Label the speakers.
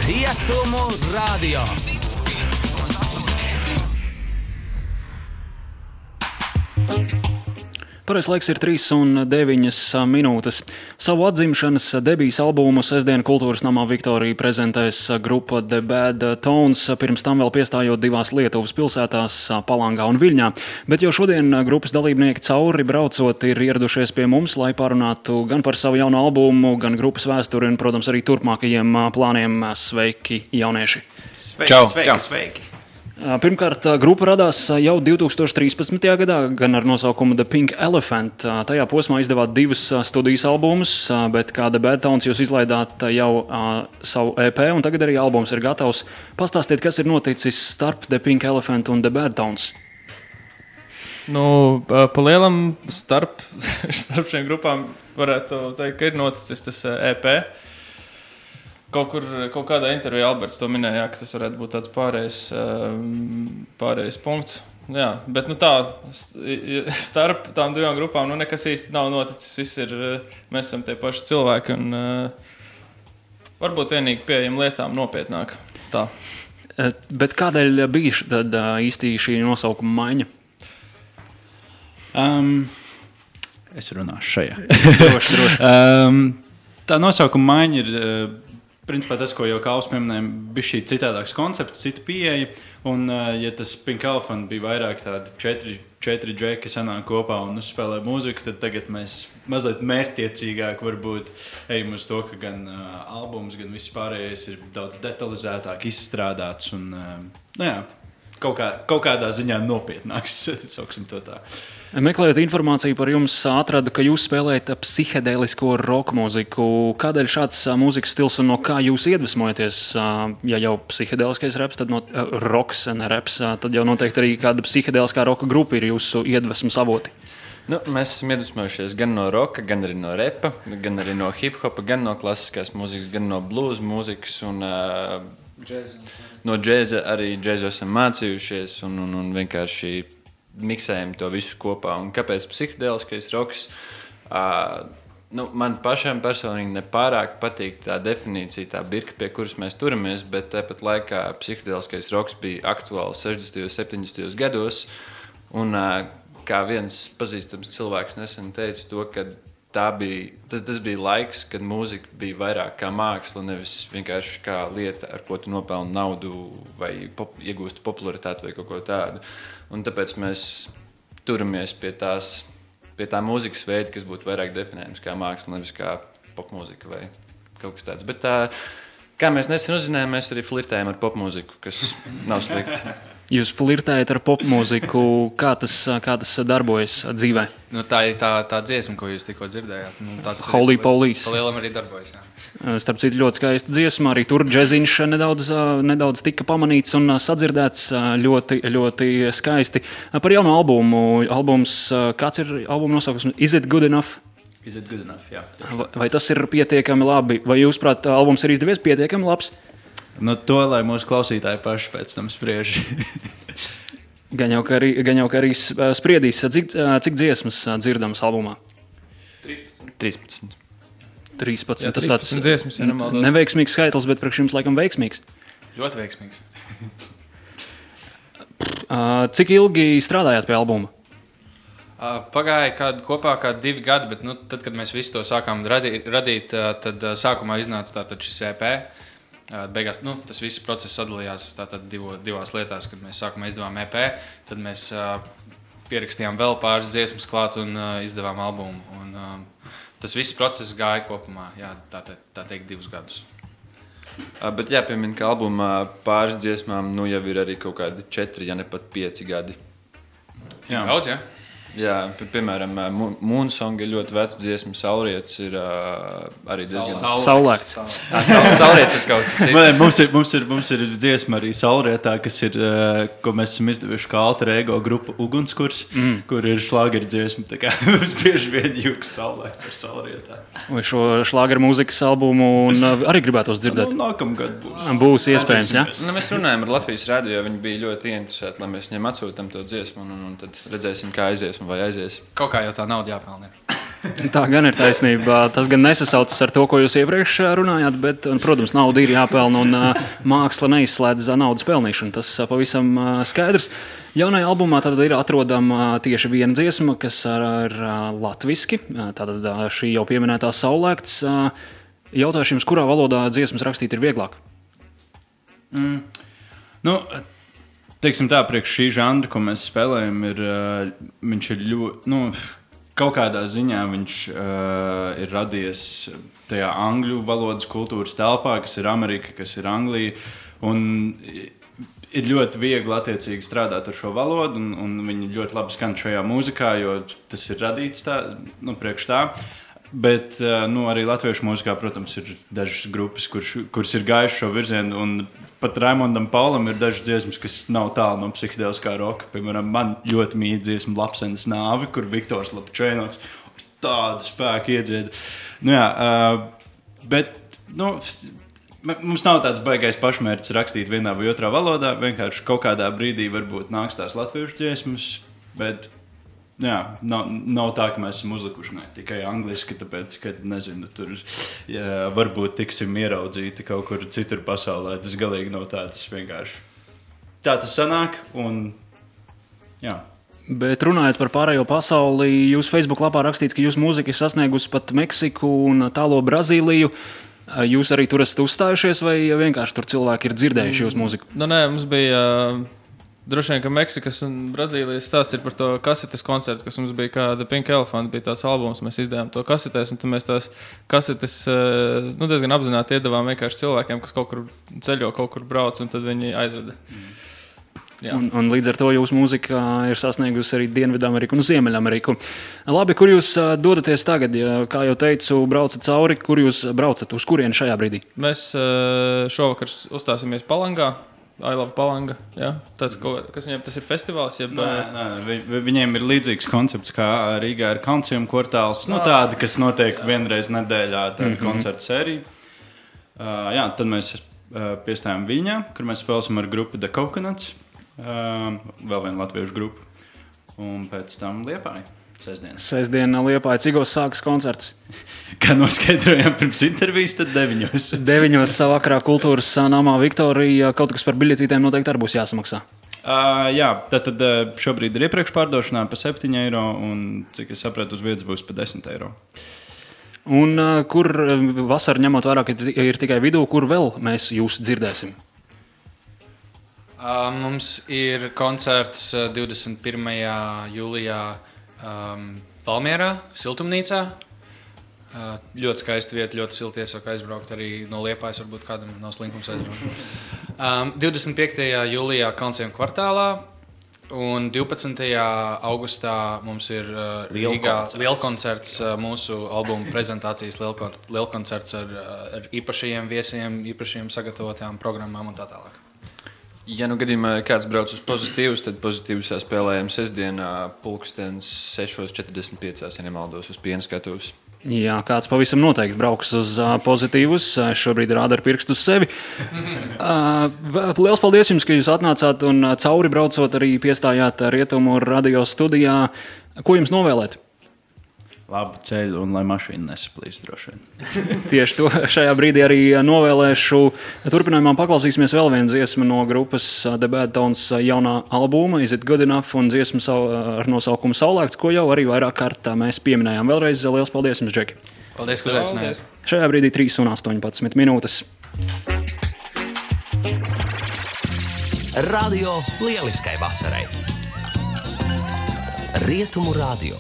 Speaker 1: Rietumu radio.
Speaker 2: Pareizais laiks ir 3:09 minūtes. Savu atzimšanas debijas albumu sestdien Kultūras namā Viktorija prezentēs grupa The Bad Tones, pirms tam vēl piestājot divās Lietuvas pilsētās Palangā un Viļņā. Bet jau šodien grupas dalībnieki cauri braucot ir ieradušies pie mums, lai parunātu gan par savu jauno albumu, gan grupas vēsturi un, protams, arī turpmākajiem plāniem. Sveiki, jaunieši!
Speaker 3: Sveiki!
Speaker 2: Pirmkārt, grupa radās jau 2013. gadā, gan ar nosaukumu The Pink Elephant. Tajā posmā izdevāt divus studijas albumus, bet kā The Bad Tones jūs izlaidāt jau savu EP, un tagad arī albums ir gatavs. Pastāstiet, kas ir noticis starp The Pink Elephant un The Bad Tones?
Speaker 3: Pa lielam starp šiem grupām varētu teikt, ka ir noticis tas EP. Kaut kādā intervijā Alberts to minēja, ka tas varētu būt tāds pārējais punkts. Jā, bet tā starp tām divām grupām nekas īsti nav noticis. Mēs esam tie paši cilvēki un varbūt vienīgi pieejam lietām nopietnāk. Tā.
Speaker 2: Bet kādēļ bija tad īsti šī nosaukuma maiņa?
Speaker 4: Es runāšu šajā.
Speaker 2: Droši.
Speaker 4: Tā nosaukuma maiņa ir principā tas, ko jau Kāls pieminēja, bija šī citādāks koncepts, cita pieeja. Un, ja tas Pink Elephant bija vairāk tādi četri džeki sanāk kopā un uzspēlē mūziku, tad tagad mēs mazliet mērķtiecīgāk varbūt ejam uz to, ka gan albums, gan viss pārējais ir daudz detalizētāk izstrādāts un, kaut kādā ziņā nopietnāks, sauksim to tā.
Speaker 2: Meklējot informāciju par jums, atradu, ka jūs spēlējat psihedēlisko roka mūziku. Kādēļ šāds mūzikas stils un no kā jūs iedvesmojaties? Ja jau psihedēliskais reps, tad roks, ne reps, tad jau noteikti arī kāda psihedēliskā roka grupa ir jūsu iedvesmas avoti.
Speaker 5: Mēs esam iedvesmojušies gan no roka, gan arī no repa, gan arī no hip-hopa, gan no klasiskās mūzikas, gan no blues mūzikas un no džēza. Arī džēzu esam mācījušies un vienkārši miksējam to visu kopā. Un kāpēc psihedēliskais roks? Man pašam personīgi nepārāk patīk tā definīcija, tā birka, pie kuras mēs turamies, bet tāpat laikā psihedēliskais roks bija aktuāls 60. un 70. gados. Un kā viens pazīstams cilvēks nesen teica to, ka tas bija laiks, kad mūzika bija vairāk kā māksla, nevis vienkārši kā lieta, ar ko tu nopelni naudu vai iegūsti popularitāti vai kaut ko tādu. Un tāpēc mēs turamies pie tā mūzikas veida, kas būtu vairāk definējams kā māksla, nevis kā popmūzika vai kaut kas tāds. Bet kā mēs nesen uzzinājām, mēs arī flirtējam ar popmūziku, kas nav slikti.
Speaker 2: Jūs flirtējat ar popmūziku, kā tas darbojas dzīvē?
Speaker 6: Tā ir tā dziesma, ko jūs tikko dzirdējāt.
Speaker 2: Holy Police.
Speaker 6: Palielam arī darbojas, jā.
Speaker 2: Starp citu, ļoti skaista dziesma, arī tur džeziņš nedaudz tika pamanīts un sadzirdēts ļoti, ļoti skaisti. Par jauno albumu. Kāds ir albuma nosaukums? Is it good enough?
Speaker 4: Is it good enough, jā.
Speaker 2: Vai tas ir pietiekami labi? Vai jūs, prāt, albums ir izdevies pietiekami labs?
Speaker 4: To, lai mūsu klausītāji paši pēc tam spriež.
Speaker 2: Gan jau, ka arī spriedīs. Cik dziesmas dzirdamas albumā?
Speaker 5: 13.
Speaker 2: 13.
Speaker 3: Jā,
Speaker 2: Tas
Speaker 3: 13 dziesmas, ja nemaldos.
Speaker 2: Neveiksmīgs skaitlis, bet priekš jums laikam veiksmīgs.
Speaker 6: Ļoti veiksmīgs.
Speaker 2: Cik ilgi strādājāt pie albuma?
Speaker 6: Pagāja kopā 2 gadi, bet tad, kad mēs visu to sākām radīt, tad sākumā iznāca šis EP. Beigās tas viss process sadalījās divās lietās, kad mēs sākumā izdevām EP, tad mēs pierakstījām vēl pāris dziesmas klāt un izdevām albumu. Un, tas viss process gāja kopumā, tā teikt, 2 gadus.
Speaker 5: Bet jāpiemina, ka albumā pāris dziesmām jau ir arī kaut kādi 4, ja ne pat 5 gadi.
Speaker 6: Jā. Daudz, jā?
Speaker 5: Jā, piemēram, Moonsong ir ļoti vecs dziesma, Saulrietis ir arī diezgan...
Speaker 2: Saulēkts.
Speaker 5: Saulrietis ir kaut kas cits.
Speaker 4: Mums ir dziesma arī Saulrietā, kas ir, ko mēs esam izdevuši kā alter ego grupa Ugunskurs, kur ir šlāgeru dziesma, tā kā mums bieži vien jūks Saulēkts ar Saulrietā.
Speaker 2: Vai šo šlāgeru mūzikas albumu arī gribētos dzirdēt?
Speaker 4: Nākamgad būs.
Speaker 2: Būs iespējams, jā?
Speaker 5: Mēs runājam ar Latvijas radio, viņi bija ļoti ieinteresēti, lai mēs viņiem atsūtam to dziesmu un tad redzēsim, kā aizies. Vai aizies.
Speaker 6: Kaut kā jau tā nauda jāpelnē.
Speaker 2: Tā gan ir taisnība. Tas gan nesasaucas ar to, ko jūs iepriekš runājāt, bet, protams, nauda ir jāpelna un māksla neizslēdz naudas pelnīšanu. Tas pavisam skaidrs. Jaunajā albumā tad ir atrodama tieši viena dziesma, kas ir latviski. Tātad šī jau pieminētā Saulēkts. Jautāšu jums, kurā valodā dziesmas rakstīt ir vieglāk?
Speaker 4: Nu, teiksim tā, priekš šī žanra, ko mēs spēlējam, viņš ir ļoti, kaut kādā ziņā viņš ir radies tajā angļu valodas kultūras telpā, kas ir Amerika, kas ir Anglija, un ir ļoti viegli attiecīgi strādāt ar šo valodu, un viņi ļoti labi skan šajā mūzikā, jo tas ir radīts tā, priekš tā. Bet arī latviešu mūzikā, protams, ir dažas grupas, kuras ir gājušas šo virzienu, un pat Raimondam Paulam ir dažas dziesmas, kas nav tālu no psihedeliskā roka. Piemēram, man ļoti mīl dziesma Lapsenes nāve, kur Viktors Lapčēnoks tādu spēku iedzied. Bet mums nav tāds baigais pašmērķis rakstīt vienā vai otrā valodā, vienkārši kaut kādā brīdī varbūt nāks tās latviešu dziesmas, bet nav tā, ka mēs esam uzlikuši tikai angliski, tāpēc, ka, nezinu, tur varbūt tiksim ieraudzīti kaut kur citur pasaulē. Tas galīgi nav tā, tas vienkārši tā tas sanāk, un jā.
Speaker 2: Bet runājot par pārējo pasauli, jūs Facebook lapā rakstīts, ka jūsu mūzika ir sasniegusi pat Meksiku un tālo Brazīliju. Jūs arī tur esat uzstājušies, vai vienkārši tur cilvēki ir dzirdējuši jūsu mūziku?
Speaker 3: Nē, mums bija... Droši vien, ka Meksikas un Brazīlijas stāsts ir par to kasetes koncertu, kas mums bija kāda Pink Elephant, bija tāds albums, mēs izdevām to kasetēs, un tad mēs tās kasetes diezgan apzināti iedavām vienkārši cilvēkiem, kas kaut kur ceļo, kaut kur brauc, un tad viņi aizveda.
Speaker 2: Un līdz ar to jūsu mūzika ir sasniegusi arī Dienvidameriku un Ziemeļameriku. Labi, kur jūs dodaties tagad? Kā jau teicu, braucat cauri, kur jūs braucat? Uz kurieni šajā brīdī?
Speaker 3: Mēs šovakar uzstāsimies Palangā. I love Palanga. Ja? Tas, kas viņiem tas ir festivāls?
Speaker 4: Viņiem ir līdzīgs koncepts, kā Rīgā ir Kalncium kvartāls. Tāda, kas notiek vienreiz nedēļā, tāda koncerta sērija. Tad mēs piestājām Viļņā, kur mēs spēlēsim ar grupu The Coconuts. Vēl vienu latviešu grupu. Un pēc tam Liepāja.
Speaker 2: Sestdiena Liepāja. Cigos sākas koncerts?
Speaker 4: Kā noskaidrojām pirms intervijas, tad 9.
Speaker 2: 9. vakarā Kultūras namā Viktorija. Kaut kas par biļetītēm noteikti arī būs jāsamaksā.
Speaker 4: Tad šobrīd ir iepriekš pārdošanā pa 7 eiro, un, cik es sapratu, uz vietas būs pa 10 eiro.
Speaker 2: Un kur vasara ņemot vairāk ir tikai vidū, kur vēl mēs jūs dzirdēsim?
Speaker 6: Mums ir koncerts 21. jūlijā Valmierā, Siltumnīcā. Ļoti skaista vieta, ļoti silti iesaka aizbraukt arī no Liepājas, varbūt kādam nav slinkums aizbraukt. 25. jūlijā Kalncium kvartālā un 12. augustā mums ir Rīgā lielkoncerts, mūsu albuma prezentācijas lielkoncerts ar īpašajiem viesiem, īpašajiem sagatavotām programmām un tā tālāk.
Speaker 5: Ja gadījumā kāds brauc uz pozitīvus, tad pozitīvus spēlējam sestdienā 6:45, ja nemaldos, uz Piena skatuves.
Speaker 2: Jā, kāds pavisam noteikti brauks uz pozitīvus. Šobrīd rāda ar pirkstu uz sevi. Liels paldies jums, ka jūs atnācāt un cauri braucot arī piestājāt Rietumu radio studijā. Ko jums novēlēt?
Speaker 4: Labu ceļu un lai mašīna nesaplīst droši vien.
Speaker 2: Tieši to šajā brīdī arī novēlēšu. Turpinājumā paklausīsimies vēl vienu dziesmu no grupas The Bad Tones jaunā albuma Is It Good Enough un dziesmu ar nosaukumu Saulēkts, ko jau arī vairāk kārt mēs pieminējām. Vēlreiz liels paldies jums, Džeki.
Speaker 6: Paldies, ka uzaicinājāt.
Speaker 2: Šajā brīdī 3:18 minūtes.
Speaker 1: Radio lieliskai vasarai. Rietumu radio.